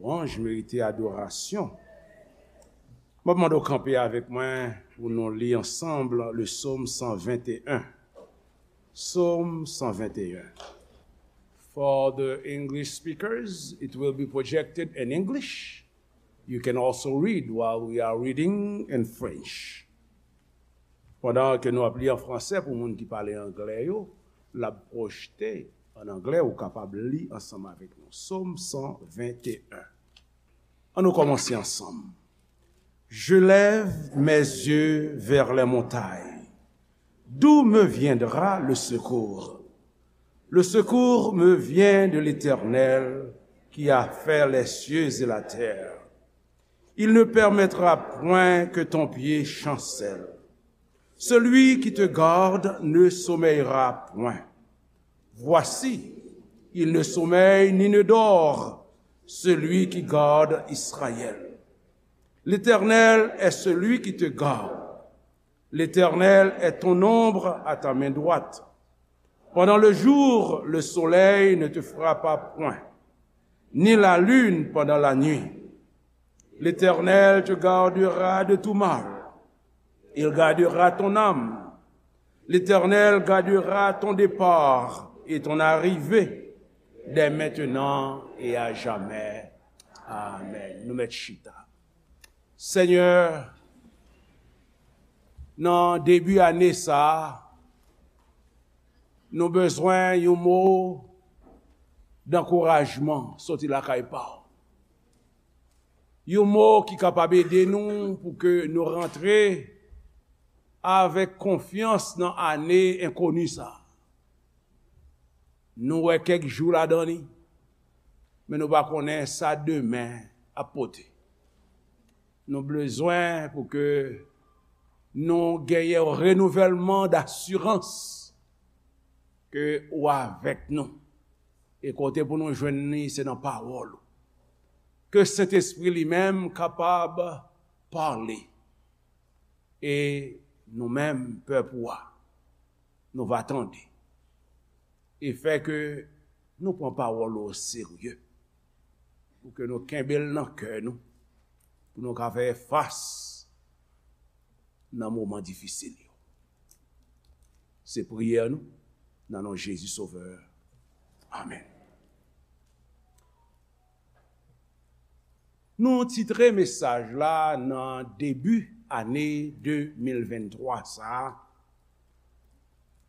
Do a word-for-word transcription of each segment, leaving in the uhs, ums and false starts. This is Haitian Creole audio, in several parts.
Louanj merite adorasyon. Mwen mande w kanpe avèk mwen pou nou li ansanm le Psaume cent vingt et un. Psaume cent vingt et un. For the English speakers, it will be projected in English. You can also read while we are reading in French. Pandan ke nou ap li an fransè pou moun ki pale anglè yo, l ap pwojte an anglè, ou kapab li ansanm avèk nou. Psaume cent vingt et un. Ann nou kòmanse ansanm. Je lève mes yeux vers les montagnes. D'où me viendra le secours? Le secours me vient de l'Éternel qui a fait les cieux et la terre. Il ne permettra point que ton pied chancelle. Celui qui te garde ne sommeillera point. Voici, il ne sommeille ni ne dort, celui qui garde Israël. L'Éternel est celui qui te garde. L'Éternel est ton ombre à ta main droite. Pendant le jour, le soleil ne te frappera point, ni la lune pendant la nuit. L'Éternel te gardera de tout mal. Il gardera ton âme. L'Éternel gardera ton départ et ton arrivée, dès maintenant et à jamais. Amen. Nou mèt chita. Senyè, nan debi ane sa a, nou bezwen yon mo dankourajman soti lakay pa w. Yon mo ki kapab ede nou pou ke nou rantre avèk konfyans nan ane enkoni sa a. Nou wè kèk jou ladan li, men nou pa konnen sa demen ap pote. Nou bezwen pou ke nou genyen yon renouvèlman dasirans ke ou avèk nou. E kote pou nou jwenn li, se nan pawòl ou. Ke Sentespri li menm kapab pale. E nou menm, pèp ou a, nou va tande. E fè ke nou pran pawòl ou oserye. Pou ke nou kenbe l nan kè nou. Pou nou ka fè fas nan moman difisil yo. Se priyè nou, nan non Jezi Sovè. Amèn. Nou titre mesaj la nan debi ane de mil venntwa sa a,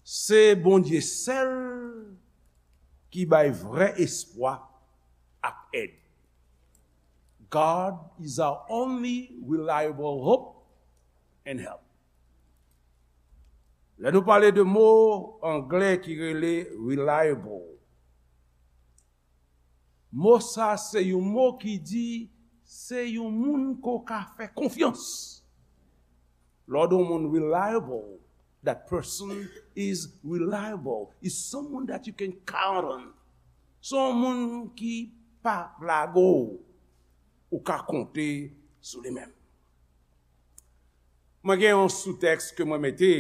se Bondye sèl ki bay vrè espwa ak èd. God is our only reliable hope and help. Lè nou pale de mo anglè ki rele reliable, mo sa se yon mo ki di se yon moun ke w ka fè konfyans. Lè w di yon moun reliable, that person is reliable, is someone that you can count on. Se yon moun ki pa lage w, ou ka konte sou li menm. Mwen gen yon soutèks ke mwen mete,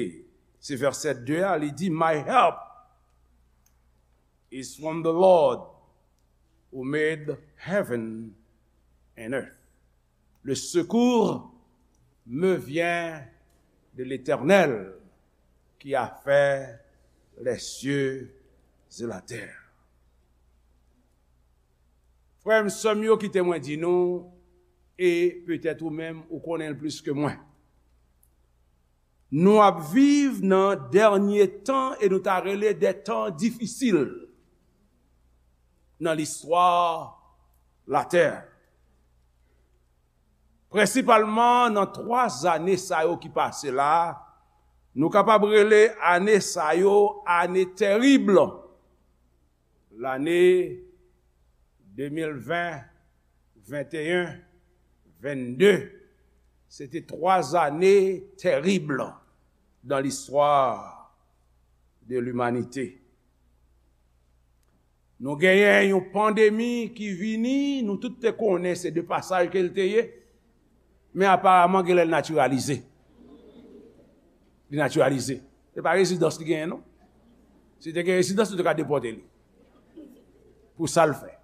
se vèsè de a, li di, My help is from the Lord who made heaven and earth. Le secours me vient de l'Éternel qui a fait les cieux et la terre. Frè m, sè m yo, kite mwen di nou, e petèt ou menm ou konnen l plis ke mwen. Nou ap viv nan dènye tan e nou ta rele des temps difficiles nan listwa latè. Prensipalman nan twa zane sa yo ki pase la, nou kapab rele ane sa yo ane tèrib. Lane de mil ven, venteyen, vennde, se te twa zane tèrib dans l'histoire de l'humanité. Nou genyen yon pandemi ki vini, nou tout te konnen se de pasaj ke l te ye, men aparaman genlè l natiralize. Li natiralize. Se pa rezidans li genyen, non. Si te gen rezidans, nou te ka depòte li. Pou sa l fè.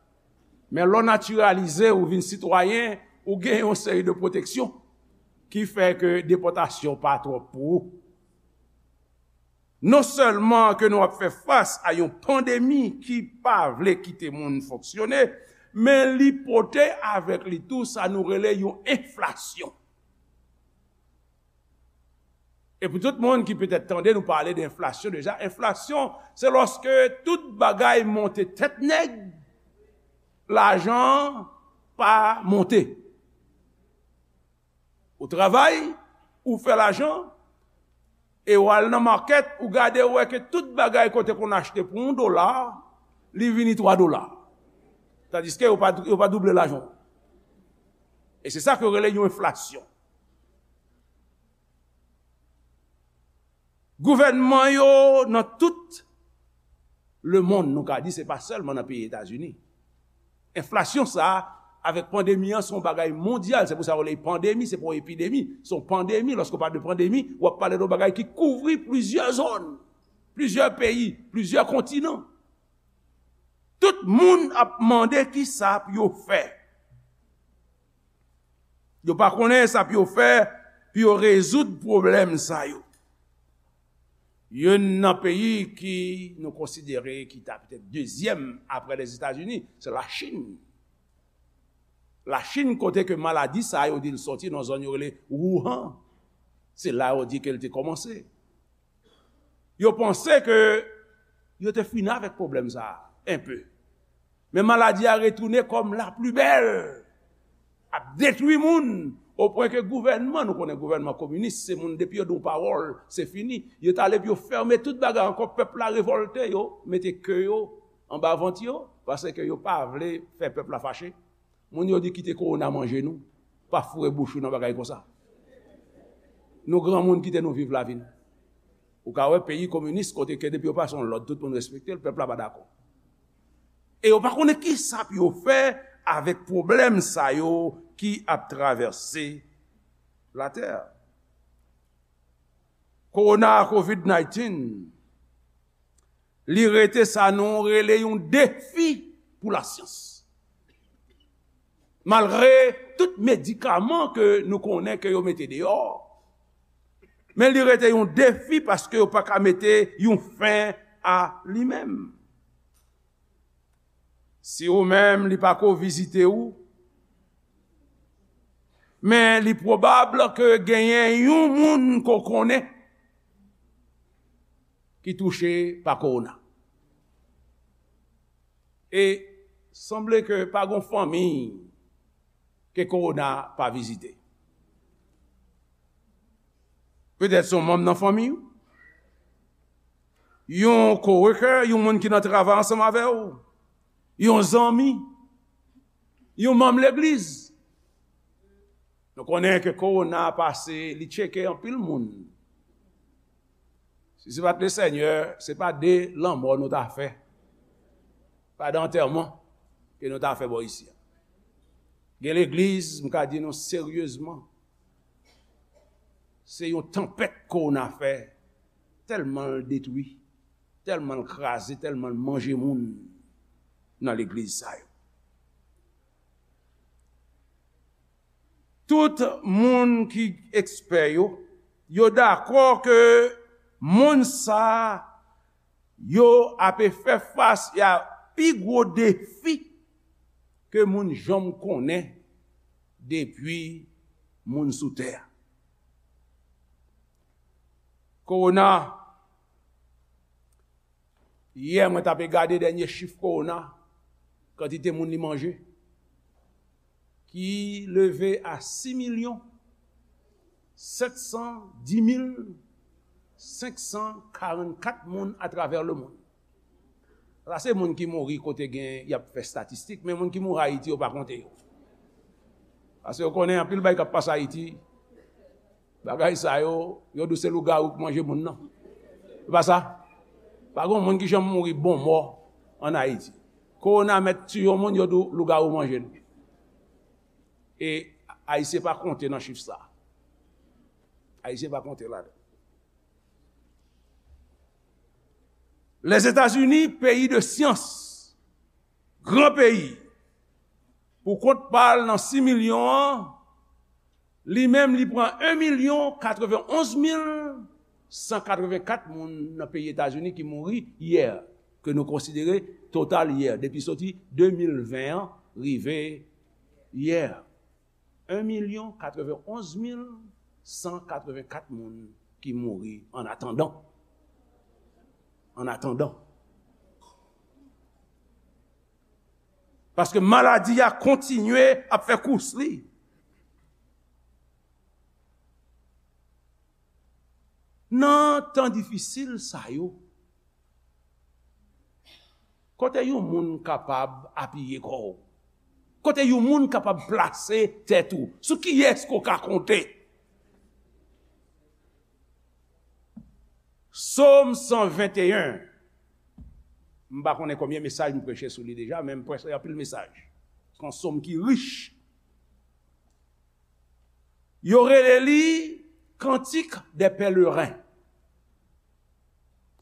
Men lè w natiralize, ou vin sitwayen, ou gen yon seri de pwoteksyon ki fè ke depòtasyon pa twòp pou ou. Non sèlman ke nou ap fè fas a yon pandemi ki pa vle kite moun fonksyone, men li pote avèk li tou sa nou rele yon enflasyon. E pou tout moun ki petèt tande nou pale de enflasyon deja, enflasyon, se lòske tout bagay monte tèt nèg, lajan pa monte. Ou travay, ou fè lajan, e w al nan makèt, ou gade, ou wè ke tout bagay kote konn achte pou yon dola, li vini twa dola. Tandiske yo pa, yo pa double lajan. E se sa ke yo rele yon enflasyon. Gouvènman yo nan tout lemonn, nou ka di, se pa sèlman nan peyi Etazini. Enflasyon sa a, avèk pandemi an, se yon bagay mondyal. Se pou sa yo rele pandemi, se pa yon epidemi, se yon pandemi. Lòske w pale de pandemi, w ap pale de yon bagay ki kouvri plizyè zòn, plizyè peyi, plizyè kontinan. Tout moun ap mande ki sa pou yo fè. Yo pa konnen sa pou yo fè pou yo rezoud pwoblèm sa yo. Youn nan peyi ki nou konsidere ki ta petèt dezyèm apre Lèzetazini, se Lachin. Lachin, kote ke maladi sa yo di l sòti nan zòn yo rele Wuhan. Se la yo di ke l te kòmanse. Yo panse ke yo te fini avèk pwoblèm sa a, enpe. Men maladi a retounen kòm la pli bèl, ap detwi moun, o pwen ke gouvènman, nou konnen gouvènman kominis, se moun depi yo di yon pawòl, se fini. Yo t ale pou yo fèmen tout bagay ankò, pèp la revòlte, yo mete ke yo anba vant yo, paske yo pa vle fè pèp la fache. Moun yo di kite kowona manje nou, pa foure bouch ou nan bagay konsa. Nou granmoun, kite nou viv lavi n. Ou ka wè peyi kominis kote ke depi yo pase yon lòd, tout moun respekte l, pèp la pa dakò. E yo pa konnen ki sa pou yo fè avèk pwoblèm sa yo ki ap travèse latè. Kowona, kovid dizennèf, li rete sa nou rele yon defi pou lasyans. Malgre tout medikaman ke nou konnen ke yo mete deyò, men li rete yon defi paske yo pa ka mete yon fen a li menm. Si ou menm li pa ko vizite ou, men li pwobab ke genyen yon moun ke w konnen ki touche pa kowona. E sanble ke pa gon fanmi ke kowona pa vizite. Petèt se yon manm nan fanmi w, yon coworker, yon moun ki nan travay ansanm avè w, yon zanmi, yon manm legliz. Nou konnen ke kowona pase, li tcheke anpil moun. Si se pa t Lesenyè, se pa de lanmò nou ta fè. Pa de antèman ke nou ta fè bò isi a. Gen legliz, m ka di nou seryezman, se yon tanpèt kowona fè, tèlman l detwi, tèlman l kraze, tèlman l manje moun nan legliz sa yo. Tout moun ki ekspè yo, yo dakò ke monn sa yo ape fè fas a pi gwo defi ke moun janm konnen depi moun sou tè a. Kowona, yè mwen t ape gade dènye chif kowona, kantite moun li manje, ki leve a sis milyon sèt san dis mil senk san karannkat moun atravè lemonn. Sa se moun ki mouri kote gen, y ap fè estatistik, men moun ki mouri Ayiti, yo pa konte yo. Paske yo konnen anpil bagay k ap pase Ayiti, bagay sa yo, yo di w se lougawou k manje moun nan. Se pa sa? Pa gen moun ki janm mouri bon mò ann Ayiti. Kowona mèt tiye yon moun, yo di w lougawou manje l. E Ayisyen pa konte nan chif sa. Ayisyen pa konte ladan. Lèzetazini, peyi de syans, gran peyi, Pou kont pa l nan sis milyon an, li menm li pran en milyon katrevenonz mil san katrevenkat moun nan peyi Etazini ki mouri yè, ke nou konsidere total yè, depi soti de mil ven an rive yè. En milyon katrevenonz mil san katrevenkat moun ki mouri an atandan. An atandan. Paske maladi a kontinye ap fè kous li. Nan tan difisil sa yo, kote yon moun kapab apiye kò w? Kote yon moun kapab plase tèt ou? Sou kiyès ke w ka konte? Sòm san venteyen. M pa konnen konbyen mesaj m preche sou li deja, men m preche anpil mesaj. Se yon sòm ki rich. Yo rele li Cantique des Pèlerins.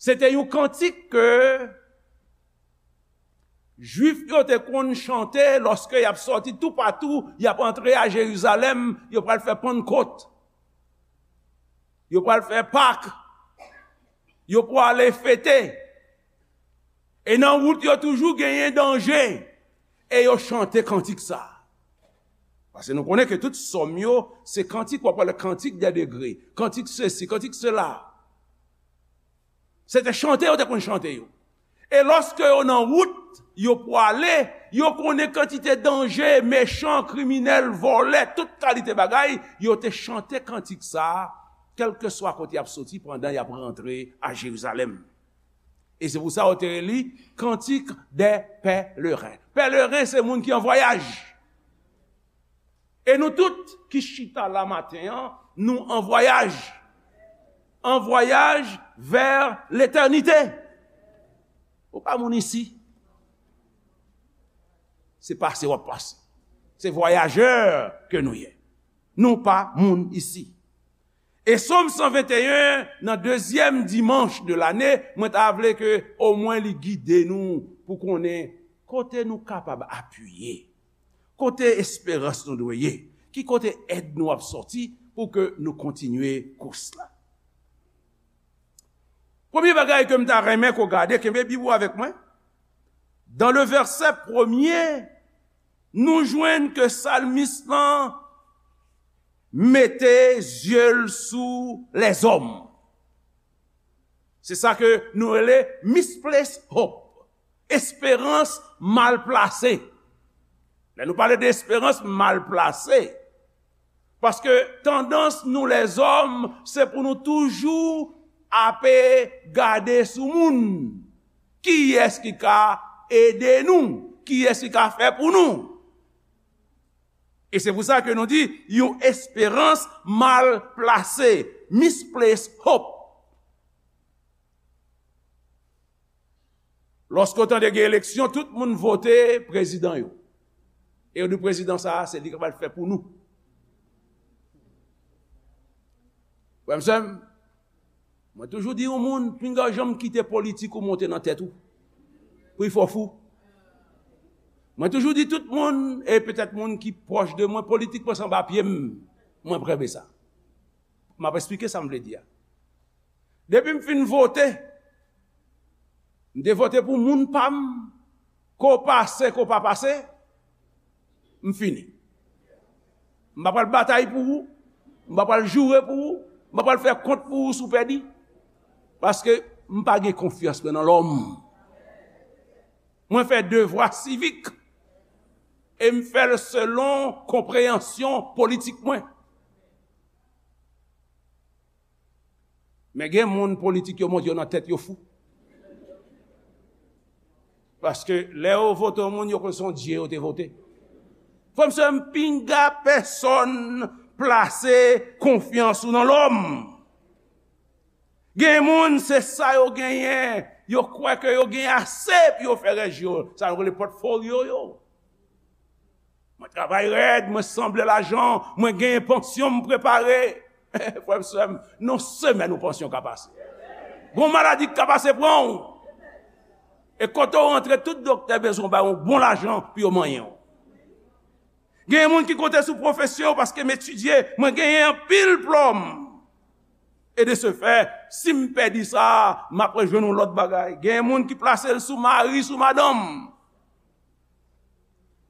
Se te yon kantik ke Jwif yo te konn chante lòske y ap sòti toupatou, y ap antre a Jerizalèm, yo pral fè Pannkot, yo pral fè Pak, yo prale fete. E nan wout yo toujou genyen danje. E yo chante kantik sa. Paske nou konnen ke tout sòm yo, se kantik, w ap pale kantik dè degre, kantik sesi, kantik sela. Se te chante yo te konn chante yo. E lòske yo nan wout, yo prale, yo konnen kantite danje, mechan, kriminèl, vòlè, tout kalite bagay, yo te chante kantik sa, kèlkeswa kote y ap soti pandan y ap rantre a Jerizalèm. E se pou sa yo te rele li Cantique des Pèlerins. Pèleren se moun ki an vwayaj. E nou tout ki chita la maten an, nou an vwayaj. An vwayaj vè letènite. Ou pa moun isi. Se pase w ap pase. Se vwayajè ke nou ye. Nou pa moun isi. E Sòm san venteyen, nan dezyèm dimanch de lane, mwen ta vle ke omwen li gide nou pou konnen kote nou kapab apiye, kote esperans nou dwe ye, ki kote èd nou ap sòti pou ke nou kontinye kous la. Premye bagay ke m ta renmen ke w gade, kenbe Bib ou avèk mwen. Dan le vèsè premye, nou jwenn ke salmis lan mete zye l sou lèzòm. Se sa ke nou rele misplaced hope, esperans mal plase. Lè nou pale de esperans mal plase, paske tandans nou lèzòm, se pou nou toujou ape gade sou moun. Kiyès ki ka ede nou? Kiyès ki ka fè pou nou? E se pou sa ke nou di, yon esperans mal plase, misplaced hope. Lòske w tande gen eleksyon, tout moun vote prezidan yo. E yo di prezidan sa a, se li k ap al fè pou nou. Frè m, sè m, mwen toujou di yon moun, pinga w janm kite politik ou monte nan tèt ou. Pou l fè w fou. Mwen toujou di tout moun, e petèt moun ki pwòch de mwen, politik pase anba pye m. Mwen premye sa. M ap esplike sa m vle di a. Depi m fin vote, m te vote pou moun pa m, ke w pase, ke w pa pase, m fini. M pa pral batay pou ou, m pa pral joure pou ou, m pa pral fè kont pou ou si w pèdi. Paske m pa gen konfyans mwen nan lòm. Mwen fè devwa sivik e m fè l selon konpreyansyon politik mwen. Men gen moun politik yo monte yo nan tèt yo fou. Paske lè yo vote yon moun, yo konn se yon dye yo te vote. Frè m, sè m, pinga pèsonn plase konfyans ou nan lòm. Gen moun, se sa yo genyen, yo kwè ke yo gen ase pou yo fè rèj yo, sa yo rele pòtfolyo yo. Mwen travay rèd, mwen sanble lajan, mwen genyen pansyon m prepare. Frè m, sè m, nan semèn ou pansyon ka pase. Gon maladi k ka pase pran w. E kote w rantre, tout doktè bezwen w bay yon bon lajan pou yo manyen w. Gen moun ki konte sou pwofesyon yo paske m etidye, mwen genyen anpil diplòm. E de se fè, si m pèdi sa, m ap rejwenn yon lòt bagay. Gen moun ki plase l sou mari, sou madanm.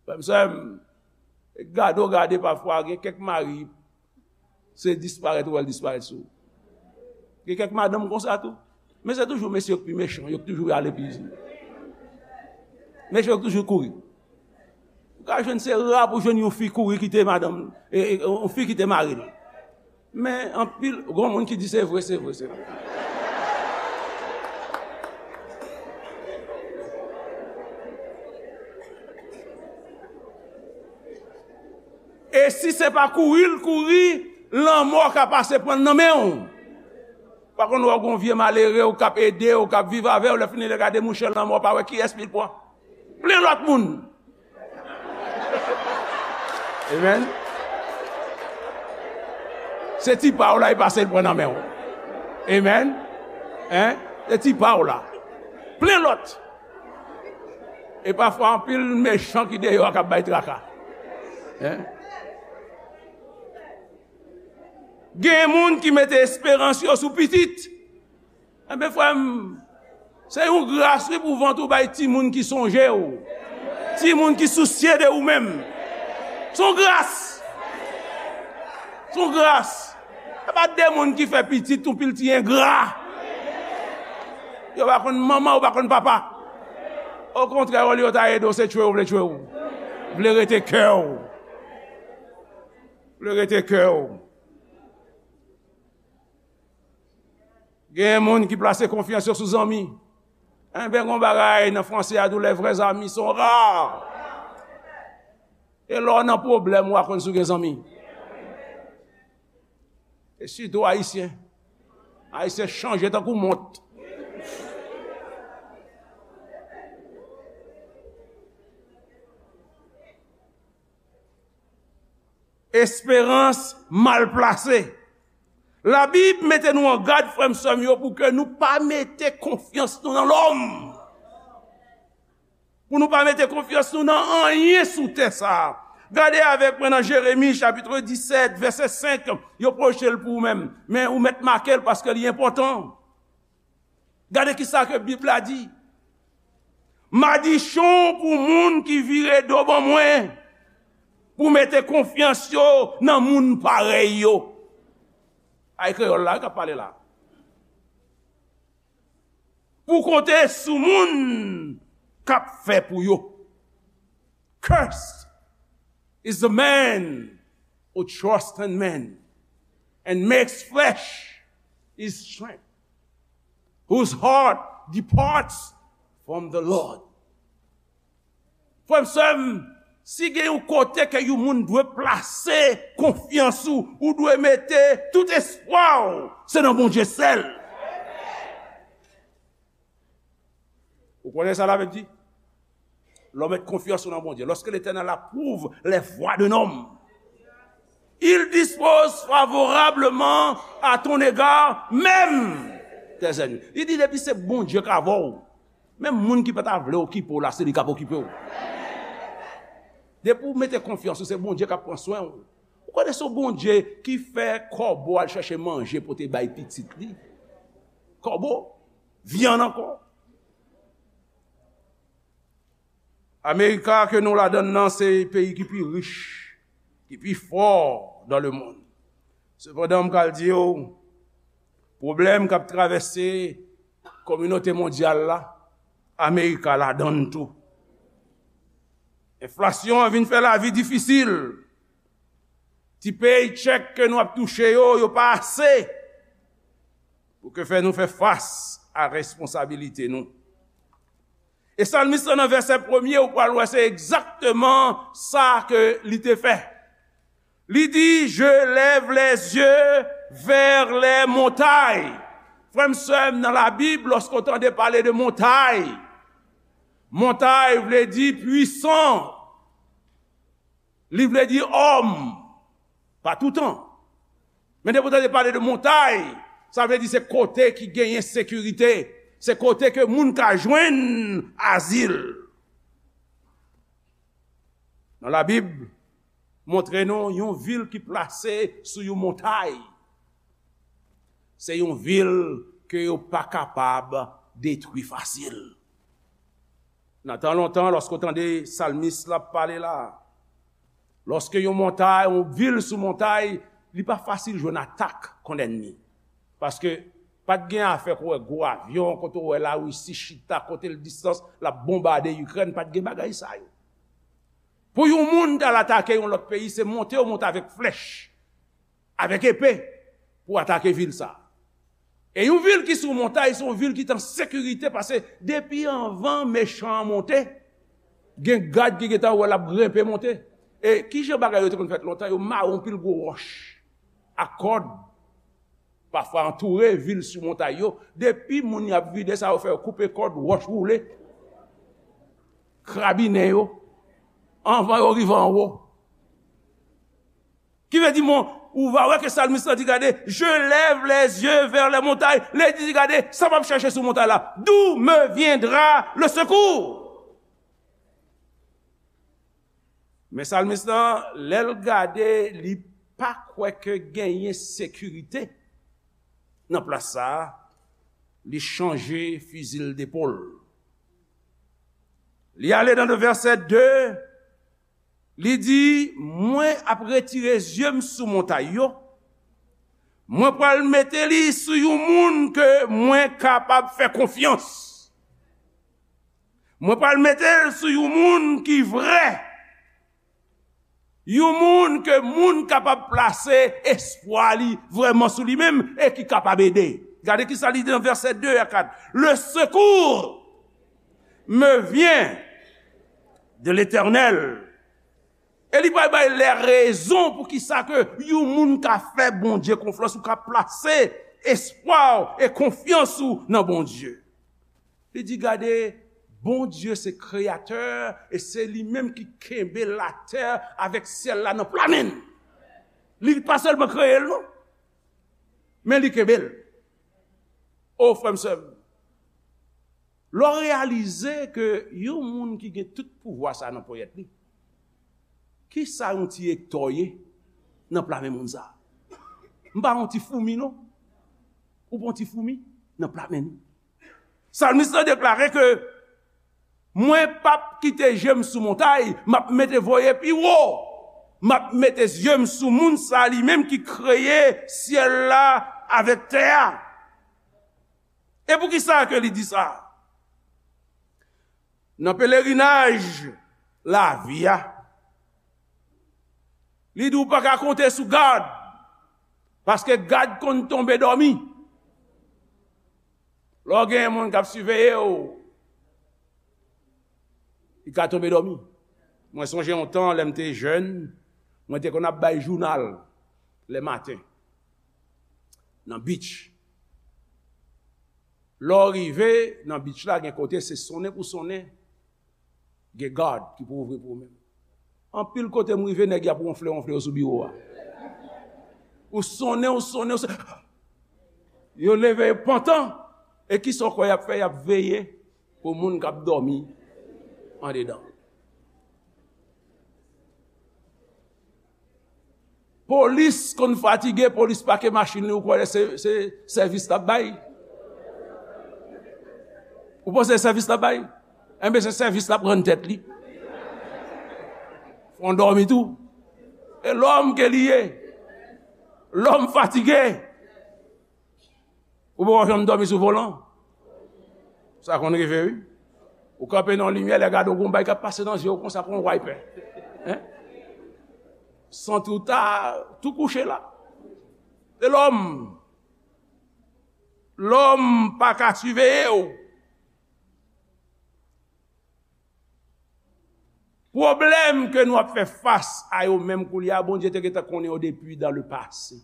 Frè m, sè m, gade w gade pafwa, gen kèk mari, se disparèt ou wè l disparèt sou ou. Gen kèk madanm konsa tou. Men se toujou mesye yo k pi mechan, yo k toujou ale pi. Mesye yo k toujou kouri. Ou ka jwenn se ra pou jwenn yon fi kouri kite madanm, e, e, yon fi kite mari l. Men anpil, gon moun ki di se vre, se vre, se vre. E si se pa kouri l kouri, lanmò ka pase pran l nan men w. Pa konn wè w gon vye malere w k ap ede w, k ap viv avè w, lè fini lè gade mouche lanmò pa wè kiyès li pran. Plen lòt moun. Amen. Se ti pa w la, li pase l pran nan men w. Amen. Hein? Se ti pa w la. Plen lòt. E pafwa, anpil mechan ki deyò a k ap bay traka. Hein? Gen moun ki mete esperans yo sou pitit. Enben, frè m, se yon gras, wi, pou vant ou bay timoun ki sonje w, timoun ki sousye de ou menm. Se yon gras. Se yon gras. Se pa de moun ki fè pitit, yon pil ti engra. Yo pa konn manman, yo pa konn papa. Okontrè, olye yo ta ede w, se tchwe w vle tchwe w. Vle rete kè w. Vle rete kè w. Gen moun ki plase konfyans yo sou zanmi. Enben, gon bagay nan franse a di w, les vrais amis sont rares. E lè w nan pwoblèm, w a konn si w gen zanmi. E sitou Ayisyen. Ayisyen chanje tankou mont. Esperans mal plase. Labib mete nou an gad, frè m, sè m yo, pou ke nou pa mete konfyans nou nan lòm. Pou nou pa mete konfyans nou nan anyen sou tè sa a. Gade avèk mwen nan Jeremi, chapit disèt, vèsè senk. Yo pwoche l pou ou menm. Men ou mèt make l paske li enpòtan. Gade ki sa ke Bib la di. Madichon pou moun ki vire do ban mwen, pou mete konfyans yo nan moun parèy yo. Ay kreyòl la, wi, k ap pale la. Pou konte sou moun k ap fè pou yo. Cursed is the man who trusts in man and makes flesh his strength, whose heart departs from the Lord. Frè m, sè m, si gen yon kote ke yon moun dwe plase konfyans ou, ou dwe mete tout espwa w, se nan Bondye sèl. Ou konnen sa Labib di? Lè w met konfyans ou nan Bondye. Lorsque l'Éternel approuve les voies d'un homme, il dispose favorablement à ton égard, même tes ennemis. Li di, depi se Bondye k avè w, menm moun ki pa ta vle okipe w la, se li k ap okipe w. Depi w mete konfyans ou, se Bondye k ap pran swen w. Ou konnen se yon Bondye ki fè kòbo al chèche manje pote bay pitit li. Kòbo, vyann ankò. Amerika ke nou ladann nan se peyi ki pi rich, ki pi fò dans le monde. Sepandan, m pral di w, pwoblèm k ap travèse kominote mondyal la, Amerika ladann tou. Enflasyon an vin fè lavi difisil. Ti paycheck ke nou ap touche yo, yo pa ase pou ke fè nou fè fas a responsabilite nou. E salmis lan nan vèsè premye, ou pral wè se egzakteman sa ke li te fè. Li di, je lève les yeux vers les montagnes. Frè m, sè m, nan Labib, lòske w tande pale de montay, montay vle di pwisan. Li vle di òm, pa toutan. Men depi w tande pale de montay, sa vle di se kote ki genyen sekirite, se kote ke moun ka jwenn azil. Nan Labib, montre nou yon vil ki plase sou yon montay. Se yon vil ke yo pa kapab detwi fasil. Nan tan lontan, lòske w tande salmis la ap pale la, lòske yon montay, yon vil sou montay, li pa fasil jwenn atak kont ènmi. Paske pa t gen afè kote w wè gwo avyon, kote w wè Larisi chita, kote l distans, l ap bonbade Ikrèn, pa t gen bagay sa yo. Pou yon moun t al atake yon lòt peyi, se monte yo monte avèk flèch, avèk epe, pou atake vil sa. E yon vil ki sou montay, se yon vil ki t an sekirite, paske depi anvan mechan an monte, gen gad ki gentan wè l ap grenpe monte. E ki jan bagay yo te konn fèt lontan, yo mare yon pil gwo wòch ak kòd, pafwa antoure vil sou montay yo. Depi moun y ap vide sa, yo fè yo koupe kòd, wòch woule, krabinen yo, anvan yo rive anwo. Ki vle di, mon, ou va wè ke salmis la di, gade, je lève les yeux vers les montagnes. Li di, gade, sa m ap chèche sou montay la. D'où me viendra le secours? Men salmis lan, lè l gade, li pa kwè ke genyen sekirite nan plas sa a, li chanje fizi l depòl. Li ale nan vèsè de, li di, mwen ap retire zye m sou montay yo, mwen pral mete li sou yon moun ke mwen kapab fè konfyans. Mwen pral mete l sou yon moun ki vrè. Yon moun ke moun kapab plase espwa li vrèman sou li menm e ki kapab ede. Gade ki sa li di nan vèsè de a kat. Le secours me vient de l'Éternel. E li pral bay lè rezon pou ki sa ke yon moun ka fè Bondye konfyans ou ka plase espwa w e konfyans ou nan Bondye. Li di, gade, Bondye se kreyatè e se li menm ki kenbe latè avèk syèl la nan pla men l. Li pa sèlman kreye l, non, men li kenbe l. O, frè m, sè m, lè w reyalize ke yon moun ki gen tout pouvwa sa nan ponyèt li, ki sa yon ti ektò ye nan pla men moun sa? M pa yon ti foumi, non. Ou pa yon ti foumi nan pla men nou. Salmis lan deklare ke, mwen p ap kite je m sou montay, m ap mete voye pi wo. M ap mete zye m sou moun sa li menm ki kreye syèl la avèk tè a. E poukisa ke li di sa? Nan pelerinaj lavi a, li di w pa ka konte sou gad, paske gad konn tonbe dòmi. Lè w gen moun k ap siveye w, li ka tonbe dòmi. Mwen sonje yon tan, lè m te jèn, mwen te konn ap bay jounal lè maten nan beach. Lè w rive nan beach la, gen kote se sonnen pou sonnen, gen gad ki pou ouvri pou ou menm. Anpil kote m rive, nèg y ap wonfle, wonfle yo sou biwo a. Ou sonnen, ou sonnen, ou sonnen. Yo leve, yo pantan. E ki sa w kwè y ap fè? Y ap veye pou moun k ap dòmi andedan. Polis konn fatige, polis pake machin li, ou kwè se, se sèvis l ap bay? Ou panse se sèvis l ap bay? Enben, se sèvis l ap rann tèt li. Fè w dòmi tou. E lòm ke li ye. Lòm fatige. Ou poko janm dòmi sou volan? Sa konn rive, wi. Ou kanpe nan limyè, lè gade w gon bagay k ap pase nan zye w konsa kon wiper. Hein? Santi w ta tou kouche la. E lòm, lòm pa ka siveye w. Pwoblèm ke nou ap fè fas a yo menm koulye a, Bondye te gentan konnen yo depi dans le passé.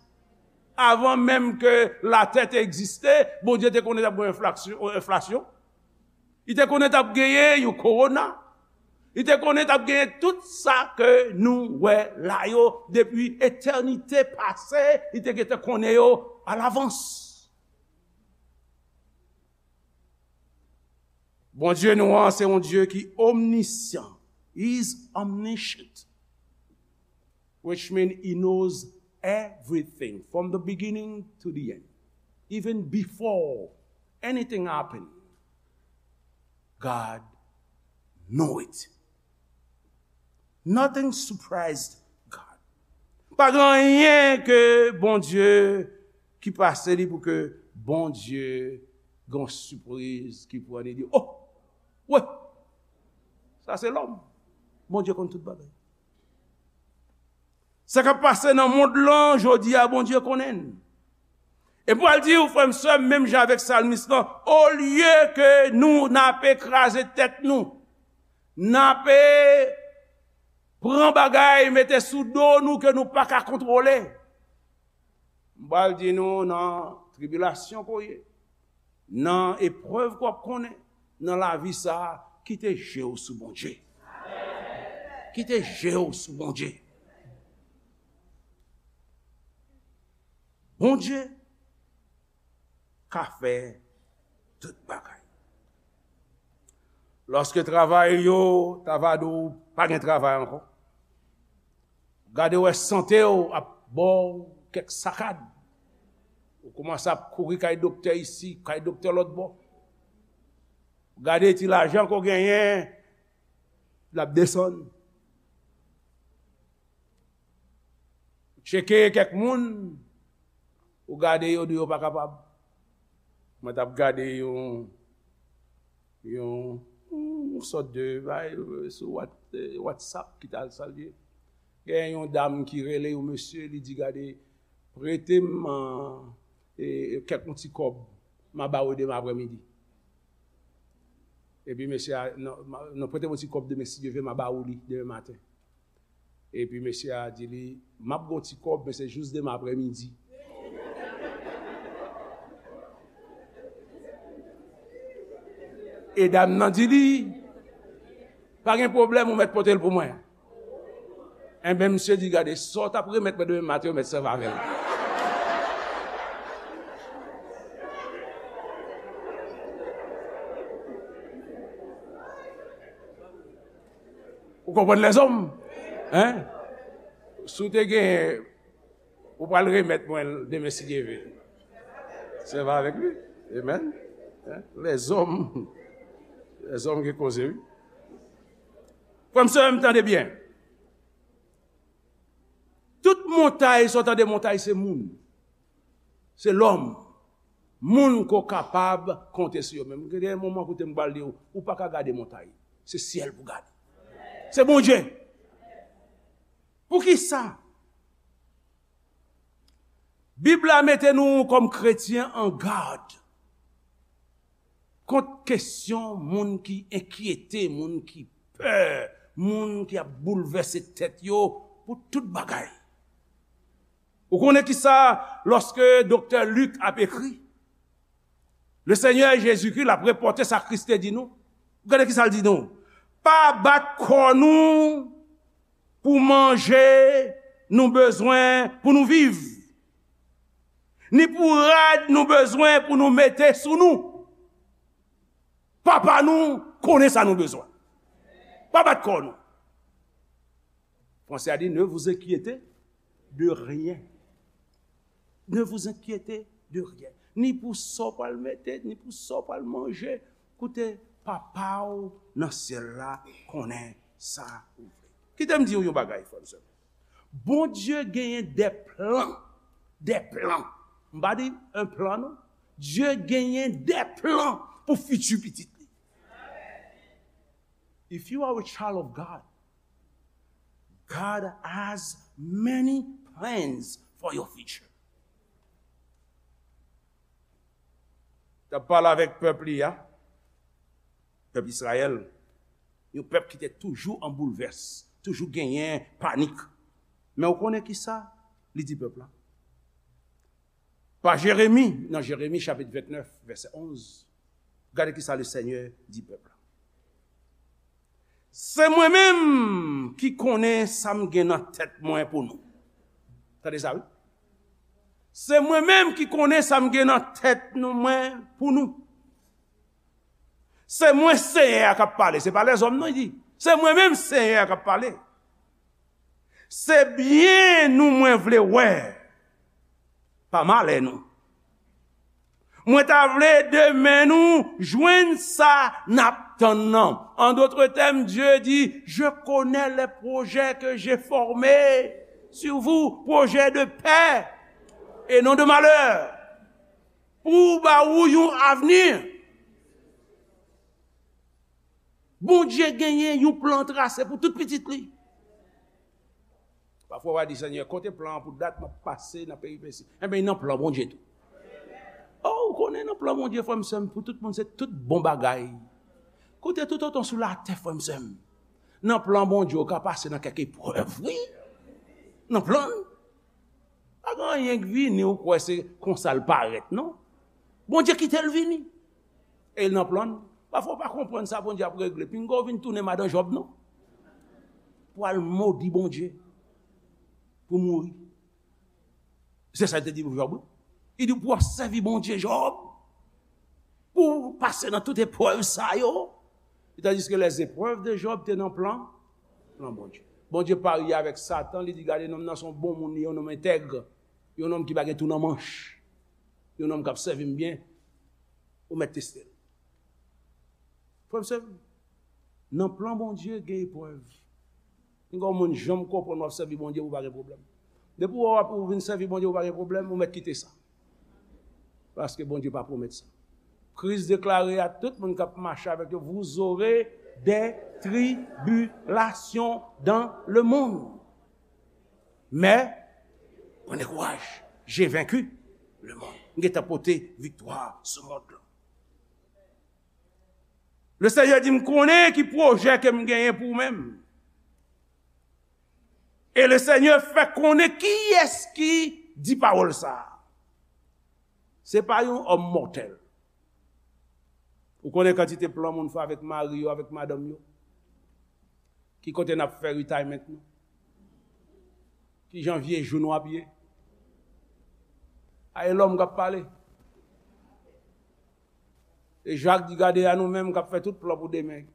Avan menm ke latè te egziste, Bondye te konnen t ap gen enflaksyon, enflasyon. Li te konnen t ap genyen yon kowona. Li te konnen t ap genyen tout sa ke nou wè la yo depi etènite pase, li te gentan konnen yo alavans. Bondye nou an, se yon Dye ki omnisyan. He is omniscient. which means he knows everything from the beginning to the end. Even before anything happened, God know it. Nothing surprised God. Pa gen anyen ke Bondye ki pase li pou ke Bondye gen yon sipriz ki pran li di, oh, wè, sa se lòm. Bondye konn tout bagay. Sa k ap pase nan mond lan jodi a, Bondye konnen l. E m pral di w, frè m, sè m, menm jan avèk salmis lan, olye ke nou n ape kraze tèt nou, n ape pran bagay mete sou do nou ke nou pa ka kontwole. M pral di nou, nan tribilasyon ke w ye, nan eprèv ke w ap konnen nan lavi sa a, kite je w sou Bondye. Kite je w sou Bondye. Bondye ka fè tout bagay. Lòske travay yo ta va di w pa gen travay ankò, gade wè sante w ap ba w kèk sakad, ou kòmanse ap kouri kay doktè isi, kay doktè lòt bò. Gade ti lajan ke w genyen, l ap desann. Tcheke kèk moun, ou gade yo, di yo pa kapab. Mwen t ap gade yon, yon, yon sòt de, bay, sou What-, eh, WhatsApp ki t al salye. Gen yon dam ki rele yon mesye, li di, gade, prete m, eh, eh, kèk yon ti kòb, m a ba w demen aprèmidi. Epi mesye a, non, ma-, non, prete m yon ti kòb demen, si Dye vle, m a ba w li demen maten. Epi mesye a di li, m ap gen yon ti kòb, men se jis demen aprèmidi. E dam nan di li, pa gen pwoblèm, ou mèt pote l pou mwen. Enben, misye di, gade, sa w t ap remèt mwen demen maten, ou mèt sèvi avè l. Ou konprann lèzòm? Hein? Si w te gen, ou pral remèt mwen l demen si Dye vle. Sèvi avèk li. Amen. Hein? Lèzòm. Lèzòm ki koze, wi. Frè m, sè m, tande byen. Tout montay, sa w tande montay, se moun. Se lòm. Moun ke w kapab konte sou yo. Men gen moman kote m pral di w, ou pa ka gade montay. Se syèl pou gade. Se Bondye. Poukisa? Bib la mete nou kòm kretyen an gad kont kesyon moun ki enkyete, moun ki pè, moun ki ap boulvèse tèt yo pou tout bagay. Ou konnen kisa, lòske doktè Lik ap ekri, le Senyè Jezikri l ap repòte sa Kris te di nou. Gade kisa l di nou. Pa bat kò nou pou manje nou bezwen pou nou viv, ni pou rad nou bezwen pou nou mete sou nou. Papa nou konnen sa nou bezwen. Pa bat kò nou. Franse a di, ne vous inquiétez de rien. Ne vous inquiétez de rien. Ni pou sa w pral mete, ni pou sa w pral manje. Koute, Papa w nan syèl la konnen sa ou vle. Kite m di w yon bagay, frè m, sè m. Bondye genyen de plan, de plan. M pa di un plan, non. Dye genyen de plan pou fiti pitit li. If you are a child of God, God has many plans for your future. T ap pale avèk pèp li a, pèp Izrayèl, yon pèp ki te toujou an boulvès, toujou genyen panik. Men ou konnen kisa li di pèp la? Pa Jeremi, nan Jeremi chapit vennèf, vèsè onz, gade kisa le Senyè di pèp la. Se mwen menm ki konnen sa m gen nan tèt mwen pou nou. Tande sa, wi. Se mwen menm ki konnen sa m gen nan tèt nou, mwen, pou nou. Se mwen Senyè a k ap pale, se pa lèzòm non, li di. Se mwen menm Senyè a k ap pale. Se byen nou mwen vle wè, pa malè nou. Mwen ta vle demen nou jwenn sa n ap tann nan. En d'autres termes, Dieu dit, je connais les projets que j'ai formés sur vous, projets de paix et non de malheur. Pou ba ou yon avni. Bondye genyen yon plan trase pou tout pitit li. Pafwa w a di, Senyè, kote plan an pou dat m ap pase nan peripesi? Enben, nan plan Bondye tou. Oh, ou konnen nan plan Bondye, frè m, sè m, pou tout moun, se tout bon bagay. Kote tout otan sou latè, frè m, sè m, nan plan Bondye, ou ka pase nan kèk eprèv, wi. Nan plan l. Pa gen anyen k vini, ou kwè se konsa l parèt, non. Bondye kite l vini. E l nan plan l. Pafwa w pa konprann sa Bondye ap regle. Pinga w vin tounen madan Jòb, non. Pou al modi Bondye. Pou mouri. Se sa l te di pou Jòb, wi. Li di, pou w ap sèvi Bondye, Jòb. Pou w pase nan tout eprèv sa yo. Tandiske les épreuves de Job te nan plan, plan Bondye. Bondye parye avèk Satan, li di, gade, nonm nan se yon bon moun, li yon nonm entèg, yon nonm ki pa gen tou nan manch, yon nonm k ap sèvi m byen, ou mèt teste l. Frè m, sè m, nan plan Bondye, gen eprèv. Pinga yon moun janm konprann w ap sèvi Bondye pou w pa gen pwoblèm. Depi w wè w ap, ou vin sèvi Bondye pou w pa gen pwoblèm, ou mèt kite sa. Paske Bondye pa pwomèt sa. Kris deklare a tout moun k ap mache avèk yo, vous aurez des tribulations dans le monde. Mais, prenez courage, j'ai vaincu le monde. M gentan pote viktwa sou mond lan. Le Senyè di, m konnen ki pwojè ke m genyen pou ou menm. E le Senyè fè konnen kiyès ki di pawòl sa a. Se pa yon òm mòtèl. Ou konnen kantite plan moun fè avèk mari yo, avèk madanm yo? Ki kote n ap fè retirement nou? Ki jan vye jou nou ap ye? A, e lòm k ap pale. E Jak di, gade a nou menm k ap fè tout plan pou demen.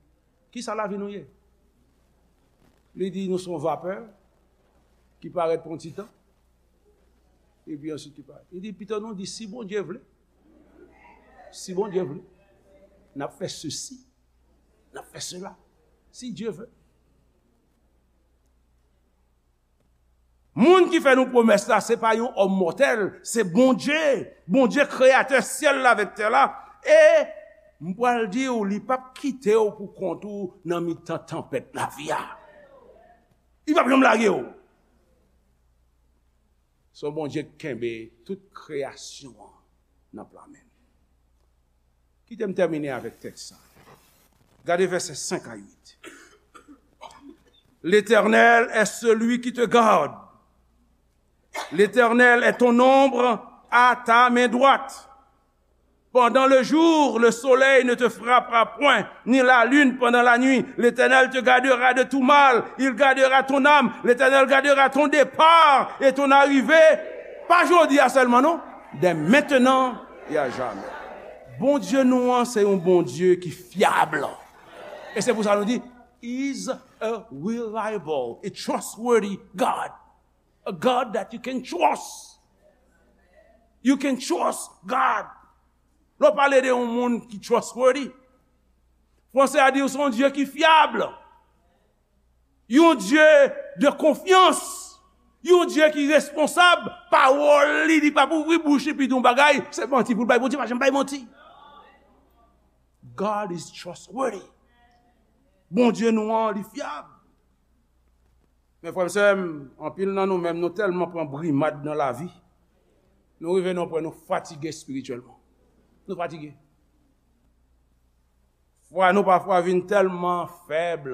Kisa lavi nou ye? Li di, nou se yon vapè ki parèt pou yon ti tan, epi answit ki parèt. Li di, pito nou di, si Bondye vle, si Bondye vle, n ap fè sesi, n ap fè sela, si Dye vle. Moun ki fè nou pwomès la, se pa yon òm mòtèl, se Bondye. Bondye kreyatè syèl la avèk tè la. E m pral di w, li p ap kite w pou kont ou nan mitan tanpèt lavi a. Li p ap janm lage w. Se yon Bondye k kenbe tout kreyasyon an nan plan men l. Kite m tèmine avèk tèks sa. Gade vèsè senk a uit. L'Éternel est celui qui te garde. L'Éternel est ton ombre à ta main droite. Pendant le jour, le soleil ne te frappera point, ni la lune pendant la nuit. L'Éternel te gardera de tout mal. Il gardera ton âme. L'Éternel gardera ton départ et ton arrivée. Pa jodi a sèlman, non. Dès maintenant et à jamais. Bondye nou an, se yon Bondye ki fyab. E se pou sa nou di, He's a reliable, a trustworthy God. A God that you can trust. You can trust God. Lè w pale de yon moun ki trustworthy, fransè a di w se yon Dye ki fyab. Yon Dye de konfyans. Yon Dye ki responsab. Pawòl li, li p ap ouvri bouch li epi di yon bagay, se manti pou l bay. Bondye pa janm bay manti. God is trustworthy. Bondye nou an, li fyab. Men frè m, sè m, anpil nan nou menm, nou tèlman pran brimad nan lavi, nou rive nan yon pwen nou fatige espirityèlman. Nou fatige. Fwa nou pafwa vin tèlman fèb,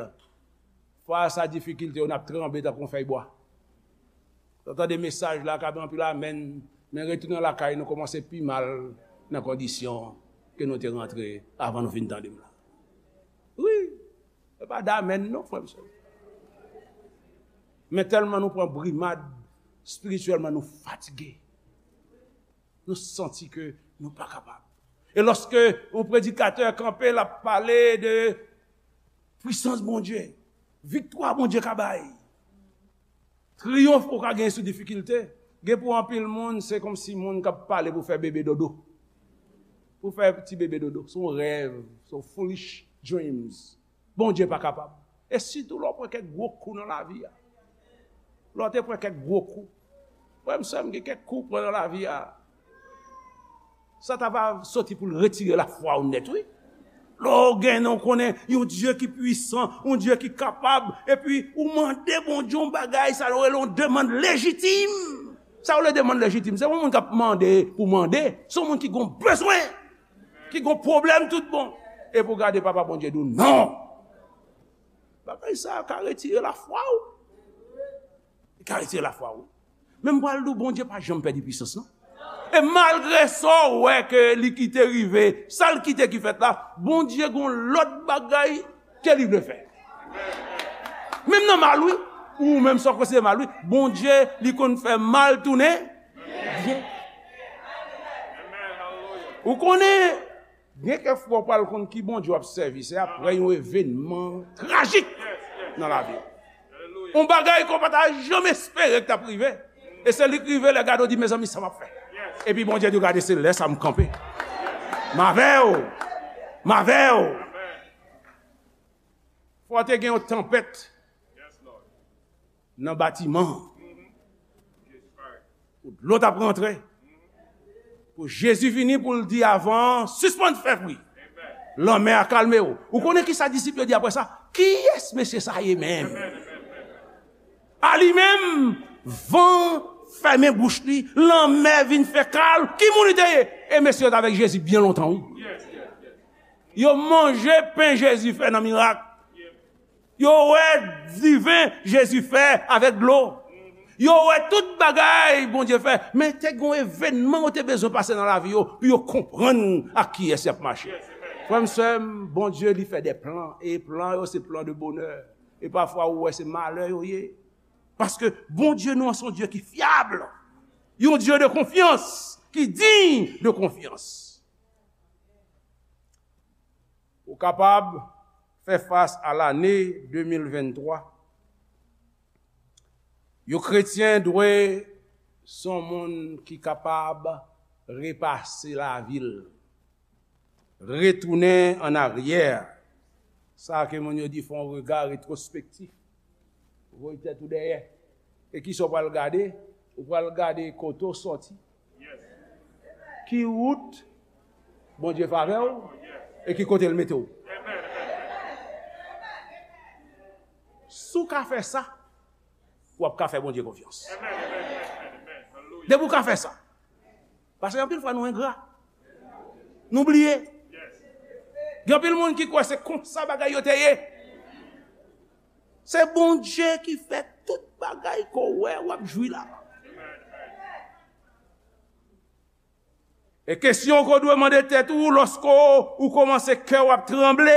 fas a difikilte yo, n ap tranble tankou yon fèy bwa. Lè w tande mesaj la, ka gen anpil amèn, men retounen lakay nou kòmanse pi mal nan kondisyon ke nou te rantre avan nou fin tande m la. Wi, se pa damèn non, frè m, sè m. Men tèlman nou pran brimad, espirityèlman nou fatige. Nou santi ke nou pa kapab. E lòske yon predikatè kanpe, l ap pale de pwisans Bondye, viktwa Bondye ka bay, Triyonf ou ka gen sou difikilte. Gen pou anpil moun, se kòmsi moun k ap pale pou fè bebe dodo. Pou fè ti bebe dodo. Se yon rèv, se yon foolish dreams. Bondye pa kapab. E sitou lè w pran kèk gwo kou nan lavi a. Lè w te pran kèk gwo kou. Frè m, sè m, gen kèk kou w pran nan lavi a. Sa ta va soti pou l retire lafwa w nèt, wi. Lè w gen, w konnen yon Dye ki pwisan, yon Dye ki kapab, epi ou mande Bondye yon bagay, sa yo rele yon demann lejitim. Sa yo rele demann lejitim, se yon moun k ap mande pou mande, se yon moun ki gon bezwen, ki gon pwoblèm tout bon. Epi w gade Papa Bondye di w non. Bagay sa a ka retire lafwa w. Li ka retire lafwa w. Men m pral di w, Bondye pa janm pèdi pwisans, non. E malgre sa w wè ke li kite rive, sa l kite ki fèt la, Bondye gon lòt bagay ke li vle fè. Menm nan mal, wi. Ou menm sa w konsidere mal, wi. Bondye, li konn fè mal tounen byen. Ou konnen, gen kèk fwa w pral konn ki Bondye w ap sèvi, se aprè yon evènman trajik nan lavi w. Yon bagay ke w pa ta janm espere ke t ap rive. E se li k rive lè gade w di, mezanmi, sa m ap fè? Epi Bondye di w, gade, se lè sa a m kanpe. M avè w. M avè w. Fò te gen yon tanpèt nan batiman an. Pou dlo t ap rantre. Pou Jezi vini pou l di avan an, sispann fè bri. Lanmè a kalme w. Ou konnen ki sa disip yo di apre sa? Kiyès mesye sa ye menm? A li menm, van fèmen bouch li, lanmè vin fè kalm. Ki moun li te ye? E mesye yo t avèk Jezi byen lontan, wi. Yo manje pen Jezi fè nan mirak. Yo wè diven Jezi fè avèk dlo. Yo wè tout bagay Bondye fè. Men te gen yon evènman yo te bezwen pase nan lavi yo pou yo konprann ak kiyès y ap mache. Frè m, sè m, Bondye, li fè de plan. E plan yo, se plan de bonè. E pafwa, ou wè, se malè yo ye. Paske Bondye nou an, se yon Dye ki fyab. Yon Dye de konfyans, ki diy de konfyans. Ou kapab fè fas a lane de mil venntwa. Yon kretyen dwe se yon moun ki kapab repase lavi l, retounen an aryè. Sa ke moun yo di fè yon rega retwospektif. Voye tèt ou dèyè. E kisa w pral gade? Ou pral gade kote w sòti. Ki wout Bondye fè avè w? E ki kote l mete w? Si w ka fè sa, w ap ka fè Bondye konfyans. Depi w ka fè sa. Paske anpil fwa nou engra. Nou bliye. Gen anpil moun ki kwè se konsa bagay yo te ye. Se Bondye ki fè tout bagay ke w wè w ap jwi la. E kesyon ke w dwe mande tèt ou lòske w kòmanse kè w ap tranble.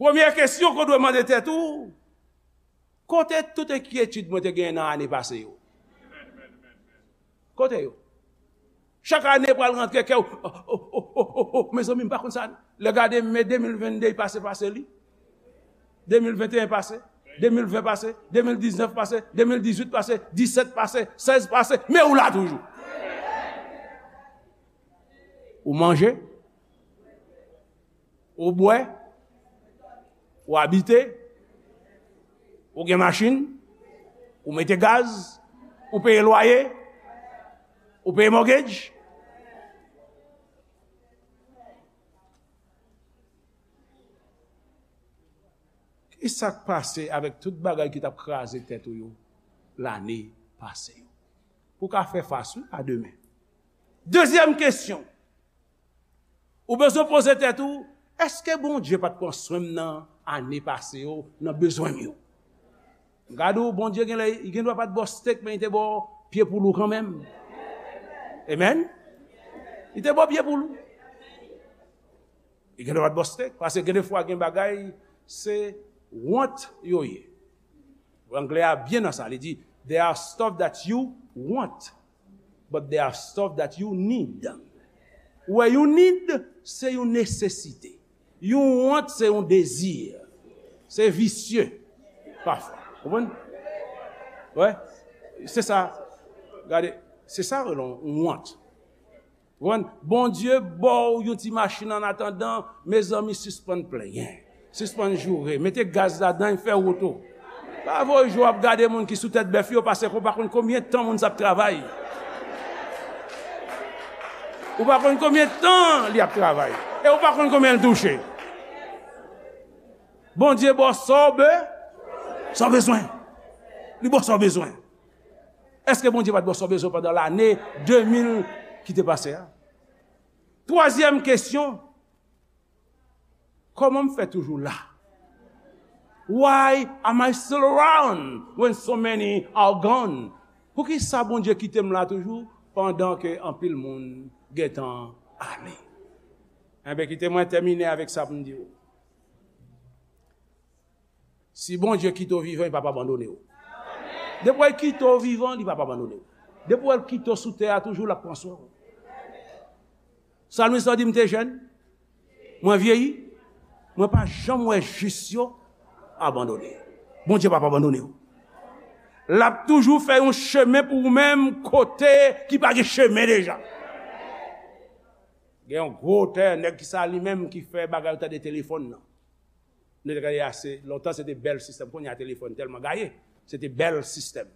Premye kesyon ke w dwe mande tèt ou, kote tout enkyetid mwen te genyen nan ane pase yo? Kote yo? Chak ane pral rantre kè w, o, o, o, o, o, mezanmi, m pa konn sa. Lè gade, men de mil venn de pase, pase li. De mil venteyen pase, de mil ven pase, de mil diznèf pase, de mil dizuit pase, disèt pase, sèz pase, men ou la toujou. Ou manje, ou bwè, ou abite, ou gen machin, ou mete gaz, ou peye lwaye, ou peye mortgage. Kisa k pase avèk tout bagay ki t ap kraze tèt ou yo lane pase yo? Pou w ka fè fas, wi, a demen. Dezyèm kesyon, ou bezwen poze tèt ou, èske Bondye pa t pran swen m nan ane pase yo, nan bezwen m yo? Gade w, Bondye gen lè, li gen dwa pa t ba w stèk, men li te ba w pye poul ou kanmenm. Amen? Li te ba w pye poul ou. Li gen dwa pa t ba w stèk, paske gen de fwa gen bagay, se want yo ye. Anglè a byen nan sa, li di, there are stuff that you want, but there are stuff that you need. Ou wè, yon need, se yon nesesite. Yon want, se yon dezi. Se visye, pafwa. Konprann? Wè, se sa. Gade, se sa rele yon wont. Ou konprann? Bondye ba w yon ti machin an atandan, mezanmi, sispann plenyen. Sispann joure. Mete gaz ladan, fè wout ou. Pa voye jou w ap gade moun ki sou tèt bèf yo, paske ou pa konn konbyen tan moun sa ap travay. Ou pa konn konbyen tan li ap travay. E ou pa konn konbyen l touche. Bondye ba w sa w be-, sa w bezwen. Li ba w sa w bezwen. Èske Bondye pa t ba w sa w bezwen pandan lane de mil ki te pase a? Twazyèm kesyon, kòman m fè toujou la? Why am I still around when so many are gone? Poukisa Bondye kite m la toujou pandan ke anpil moun gentan ale? Enben, kite mwen tèmine avèk sa pou m di w. Si Bondye kite w vivan, li p ap abandone w. Depi w kite w vivan, li p ap abandone w. Depi w kite w sou tè a, toujou l ap pran swen w. Salmis lan di, "M te jèn, mwen vyeyi, mwen pa janm wè jis yo abandone." Bondye p ap abandone w. L ap toujou fè yon chemen pou ou menm kote ki pa gen chemen deja. Gen yon gwo otè, nèg ki sa li menm ki fè bagay yo tande telefòn nan. Nou te gade ase lontan, se te bèl sistèm. Kounye a telefòn tèlman gaye, se te bèl sistèm.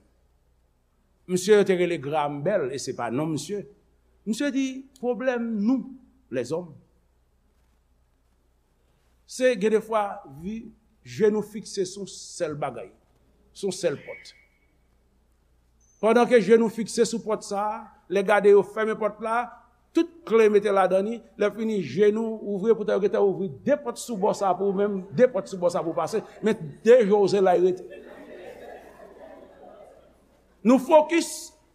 Misye yo te rele Graham Bell, e se pa non misye. Misye di, pwoblèm nou, lèzòm, se gen defwa, vi, je nou fikse sou sèl bagay, sou sèl pòt. Pandan ke je nou fikse sou pòt sa a, lè gade yo fèmen pòt la, tout kle mete ladan li, lè fini je nou ouvri, poutan yo gentan ouvri de pòt sou bò sa a pou ou menm, de pòt sou bò sa a pou w pase, men de je w se la y rete. Nou fokis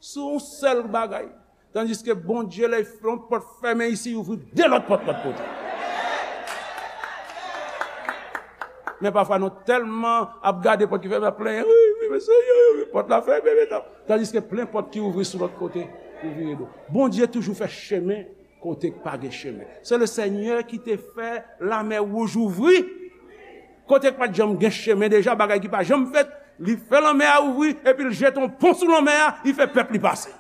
sou yon sèl bagay. Tandiske Bondye, lè yon pòt fèmen isi, li ouvri de lòt pòt lòt kote. Men pafwa nou tèlman ap gade pòt ki fèmen, ap plenyen, "Wi, wi, men Seyè, wi, pòt la fèmen, men tan." Tandiske plen pòt ki ouvri sou lòt kote, ou vire do. Bondye toujou fè chemen kote k pa gen chemen. Se le Senyè ki te fè lamè wouj ouvri. Kote k pa t janm gen chemen deja, bagay ki pa janm fèt, li fè lanmè a ouvri, epi l jete yon pon sou lanmè a, li fè pèp li pase.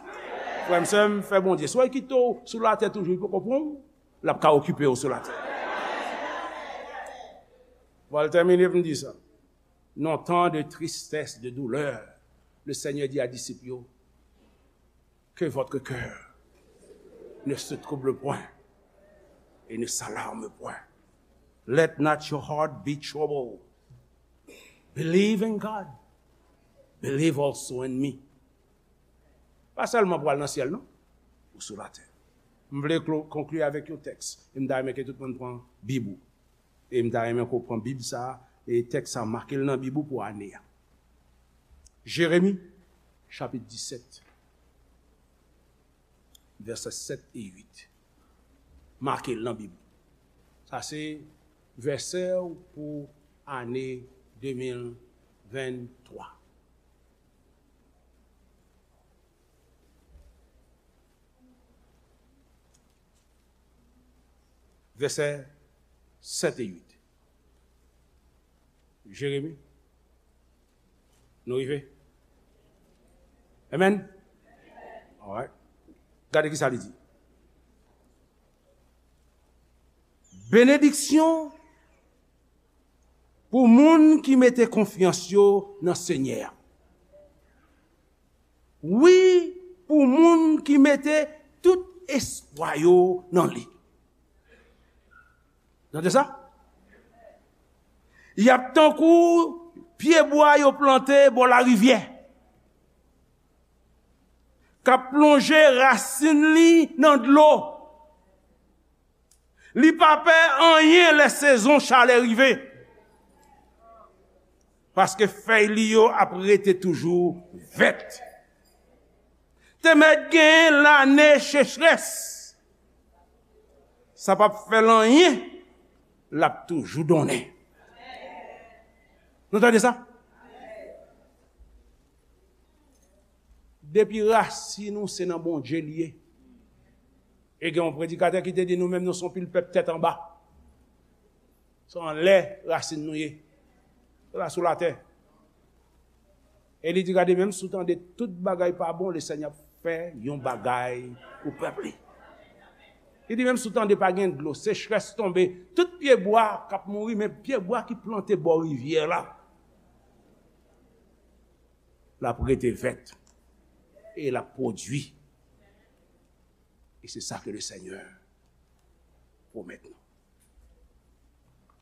Frè m, sè m, fè Bondye. Si w kite w sou latè toujou, li poko pran w, l ap ka okipe w sou latè. Bon, l tèmine pou m di sa. Non, tan de tristès, de doulè, le Senyè di a disip yo, que votre cœur ne se trouble point et ne s'alarme point. Let not your heart be troubled. Believe in God. Believe also in me. Pa sèlman pou al nan syèl, non. Ou sou latè. M vle klo-, konkli avèk yon tèks. E m ta renmen ke tout moun pran Bib ou. E m ta renmen ke w pran Bib sa a, e tèks sa a, make l nan Bib ou pou ane a. Jeremi, chapit disèt, vèsè sèt e uit. Make l nan Bib ou. Sa se vèsè w pou ane de mil venntwa. Vèsè sèt e uit. Jeremi. Nou rive? Amen? Alright. Gade ki sa li di. Benediksyon pou moun ki mete konfyans yo nan Senyè a. Wi, pou moun ki mete tout espwa yo nan li. Tande sa? Y ap tankou pyebwa yo plante bò larivyè, k ap plonje rasin li nan dlo. Li pa pè anyen lè sezon chalè rive, paske fèy li yo ap rete toujou vèt. Te mèt gen lane sechrès, sa p ap fè l anyen, l ap toujou donnen. Nou tande sa? Depi rasin ou se nan Bondye li ye. E gen yon predikatè ki te di nou menm nou se yon pil pèp tèt anba. Se anlè rasin nou ye. Se la sou latè. E li di, gade, menm si w tande tout bagay pa bon, Lesenyè ap fè yon bagay pou pèp li. Li di, menm si w tande pa gen dlo, sechrès tonbe, tout pyebwa k ap mouri, men pyebwa ki plante bò rivyè la, l ap rete vèt e l ap pwodui. E se sa ke Lesenyè pwomèt nou.